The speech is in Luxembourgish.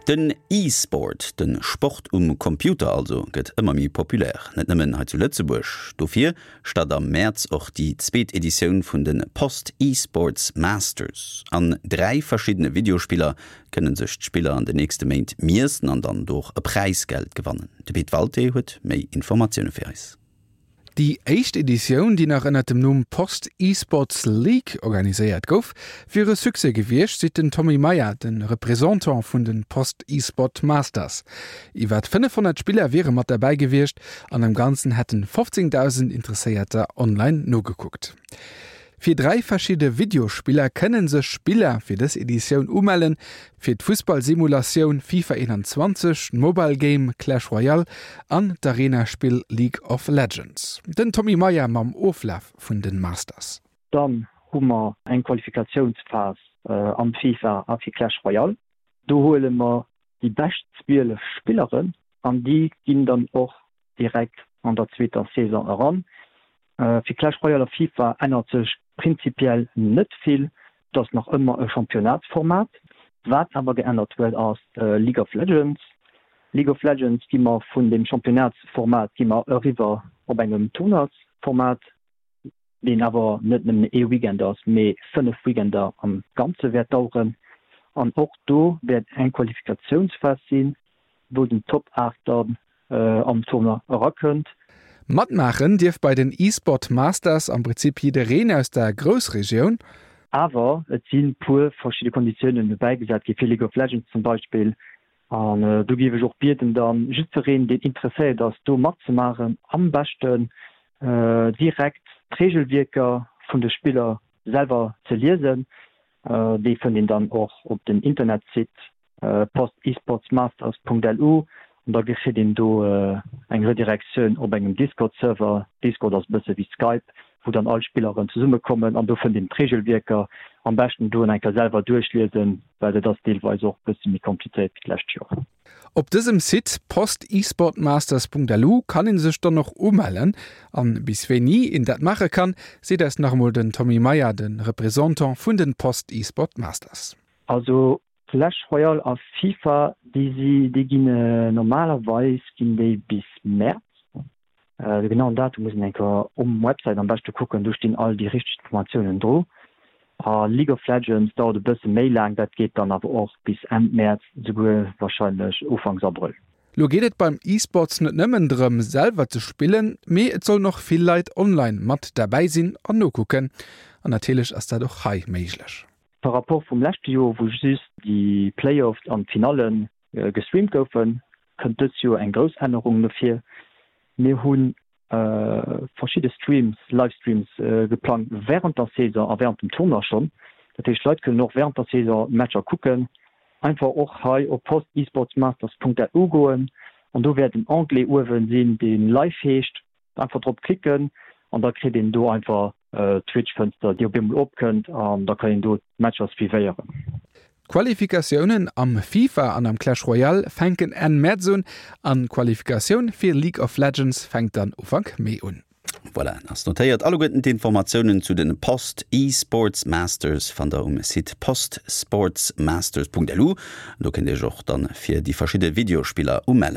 Den E-Sport, de Sport um Computer also, gëtt ëmmer méi populär. Net nëmmen hei zu Lëtzebuerg. Dofir start am Mäerz och déi zweet Editioun vun de Post E-Sports Masters. An 3 verschiddene Videospiller kënne sech d'Spiller an de nächste Méint miessen an dann do och e Präisgeld gewannen. De Pit Walté huet méi Informatioune fir eis. Déi éischt Editioun, déi nach ënnert dem Numm Post Esports League organiséiert gouf, wier e Succès gewiescht, seet den Tommy Meyer, de Représentant vun de Post Esport Masters. Iwwer 500 Spiller wiere mat derbäi gewiescht an am Ganzen hätten 15.000 Interesséierter online nogekuckt. Fir 3 verschidde Videospiller kënne sech Spiller fir dës Editioun umellen, fir d'Fussball-Simulatioun Fifa 21, d'Mobile Game Clash Royale an d'Arena-Spill League of Legends. Den Tommy Meyer mam Oflaf vun de Masters. Dann hu mer eng Qualifikatiounsphas am Fifa a fir Clash Royale. Do huele mer déi bescht 12 Spilleren an déi ginn dann och direkt an der zweeter Saison eran. Fir Clash Royale a Fifa ännert sech prinzipiell net vill, et ass nach ëmmer e Championnatsformat. Wat awer geännert huet ass League of Legends. League of Legends gi mer vun dem Championnatsformat gi mer eriwwer op engem Tournoisformat. deen awer net nëmmen ee Weekend ass, mee 5 Weekender am Ganze wäert daueren. An och do wäert eng Qualifikatiounsphas sinn, wou den Top 8 dann am Tournoi erakënnt. Matmaachen dierf bei den eSport Masters am Prinzip jiddereen aus der Groussregioun. Awer et si puer verschidde Konditiounen dobäigesat gi fir League of Legends zum Beispill, An do géif ech och bieden dann jiddwereen, deen interesséiert ass, do matzemaachen, am beschten direkt d'Regelwierker vun de Spiller selwer ze liesen. Déi fënnt een dann och op dem Internetsite postesportsmasters.lu an da kritt een do eng Redirektioun op engem Discord-Server. Discord ass e bësse wéi Skype, wou dann all Spilleren zesummekommen an do fënnt een d'Regelwierker. Am beschten do eng Kéier selwer duerchliesen, well et ass deelweis och bësse méi komplizéiert wéi d'lescht Joer. Op dësem Site postesportmasters.lu kann een sech dann och umellen. An bis wéini een dat maache kann, seet eis nach emol den Tommy Meyer, de Représentant vun den Post Esport Masters. Also Clash Royale a Fifa, déi si, déi ginn normalerweis ginn déi bis Mäerz. De genauen Datum muss een eng Kéier um Website am beschte kucken, do stinn all déi richteg Informatiounen dru. A League of Legends dauert e bësse méi laang, dat geet dann awer och bis Enn Mäerz, souguer warscheinlech Ufanks Abrëll. Lo geet et beim eSports net nëmmen drëm selwer ze spillen, mee et sollen och vill Leit online mat derbäi sinn an nokucken. An natierlech ass dat och hei méiglech. Par rapport vum leschte Joer, wou just déi Playoffs an d'Finalle gestreamt goufen, kënnt dës Joer eng grouss Ännerung no vir. Mir hu verschidde Streams, Livestreams geplangt wärend der Saison a wärend dem Tournoi schonn. Dat heescht, d'Leit kënnen och wärend der Saison d'Matcher kucken. Einfach och hei op postesportsmasters.lu goen an do wäert en Onglet uewen sinn, dee Live heescht. Einfach drop klicken an da kritt een do einfach d'Twitch-Fënster, déi op eemol opkënnt an da kann een do d'Matcher suivéieren. D'Qualifikatiounen am FIFA an am Clash Royale fänken Enn Mäerz un an d'Qualifikatioun fir League of Legends fänkt dann Ufank Mee un. Voilà, ass notéiert. Alleguerten d'Informatiounen zu den Post eSports Masters fannt der um Site postsportsmasters.lu. Do kënnt dir iech och dann fir déi verschidde Videospiller umellen.